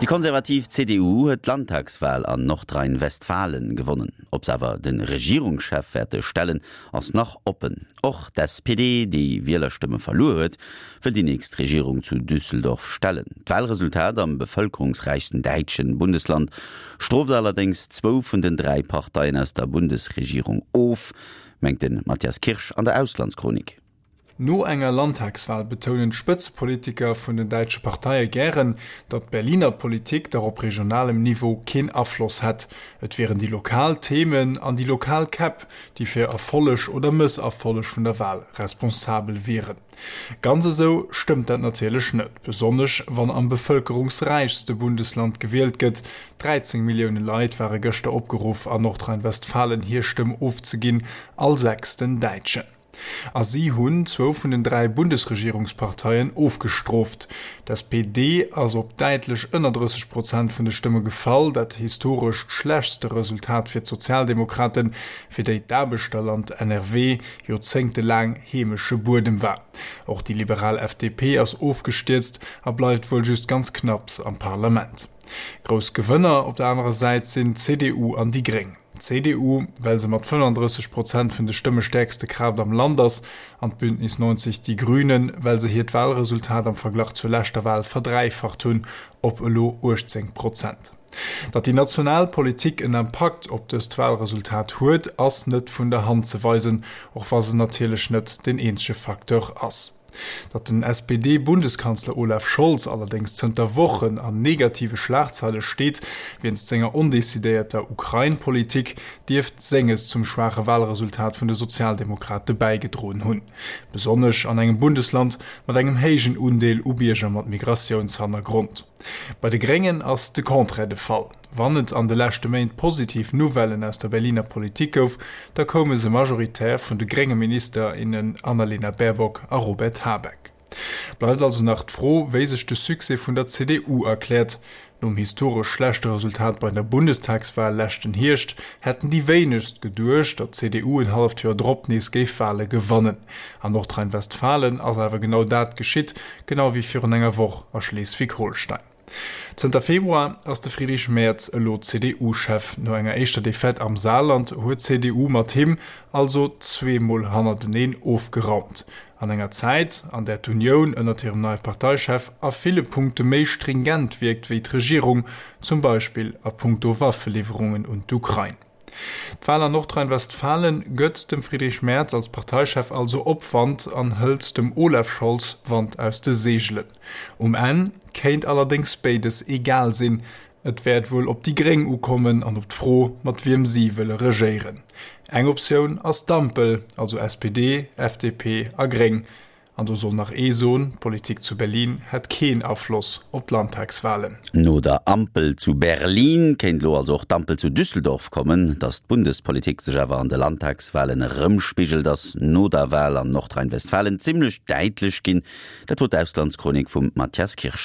Déi konservativ CDU huet d'Landtagswal an Nordrhein-Westfalen gewonnen. Ob se awer de Regierungschef wäerte stellen, ass nach oppen. Och d'SPD, déi Wielerstëmme verluer huet, wëll déi nächst Regierung zu Düsseldorf stellen. D'Walresultat am bevëlkerungsräichsten däitschen Bundesland strooft allerdéngs zwou vun den 3 Parteien aus der Bundesregierung of, mengt de Matthias Kirsch an der Auslandschronik. No enger Landtagswal betounen d'Spëtzepolitiker vun den däitsche Parteie gären, datt d'Berliner Politik dach op regionalem Niveau keen Afloss hätt. Et wieren déi lokal Themen an déi lokal Käpp, déi fir Erfolleg oder Mësserfolleg vun der Wal responsabel wieren. Ganz esou stëmmt dat natierlech net, besonnesch wann am bevëlkerungsräichste Bundesland gewielt gëtt. 13 Millioune Leit ware gëschter opgeruff, an Nordrhein-Westfalen hir Stëmm ofzeginn, all sechsten Däitschen. A si hunn zwou vun den 3 Bundesregierungsparteien ofgestrooft. D'SPD ass op däitlech ënner 30 Prozent vun de Stëmme gefall, dat historescht schlechtste Resultat fir d'Sozialdemokraten, fir déi d'Aarbechterland NRW joerzéngtelaang heemesche Buedem war. Och déi liberal FDP ass ofgestierzt a bleift wuel just ganz knapps am Parlament. Grouss Gewënner op der anerer Säit sinn d'CDU an déi Gréng. D'CDU, well se mat 35 Prozent vun de Stëmme stäerkste Kraaft am Land ass, an d'Bündnis 90 Die Grünen, well se hiert Walresultat am Verglach zur leschter Wal verdräifacht hunn, op elo 18 Prozent. Datt déi national Politik en Impakt op dëst Walresultat huet, ass net vun der Hand ze weisen, och wa se natierlech net deen eenzege Facteur ass. Datt den SPD-Bundeskanzler Olaf Scholz allerdéngs zënter Wochen an negative Schlagzeile steet, wéinst senger ondecidéierter Ukrain-Politik, dierft senges zum schwaache Walresultat vun de Sozialdemokrate bäigedroen hunn. Besonnesch an engem Bundesland mat engem héijen Undeel u Bierger mat Migratiounshannergrond. Bei de Gréngen ass de Contraire de Fall. Wann et an de leschte Méint positiv Nouvellen aus der Berliner Politik gouf, da koume se majoritär vun de grénge Minister, innen Annalena Baerbock a Robert Habeck. Bleift also nach d'Fro, wéi sech de Succès vun der CDU erkläert. Nom historesch schlechte Resultat bei der Bundestagswal leschten Hierscht hätten déi wéinegst geduecht, datt d'CDU en halleft Joer drop nees géif Wale gewannen. An Nordrhein-Westfalen ass awer genau dat geschitt, genau wéi virun enger Woch a Schleswig-Holstein. Zënter Februar ass de Friedrich Merz elo CDU-Chef. No enger éischter Defaite am Saarland huet d'CDU mat him also zweemol hannerteneen ofgeraumt. An enger Zäit, an där d'Unioun ënnert hirem neie Parteichef a ville Punkte méi stringent wierkt wéi d'Regierung, zum Beispill a punkto Waffeliwwerungen un d'Ukrain. D'Wal an Nordrhein-Westfalen gëtt dem Friedrich Merz als Parteichef also Opwand an hëlt dem Olaf Scholz Wand aus de Seegelen. Um Enn kéint allerdéngs béides egal sinn, et wäert wuel op déi Gréng ukommen an op d'Fro, mat wiem si wëlle regéieren. Eng Optioun ass d'Ampel, also SPD, FDP a Gréng. An do soll nach ee soen, d'Politik zu Berlin hätt keen Afloss op d'Landtagswalen. No der Ampel zu Berlin kéint elo also och d'Ampel zu Düsseldorf kommen. Datt d'Bundespolitik sech awer an de Landtagswalen erëmspigelt, ass no der Wal an Nordrhein-Westfalen zimmlech däitlech ginn. Dat wor d'Auslandschronik vum Mathias Kirsch.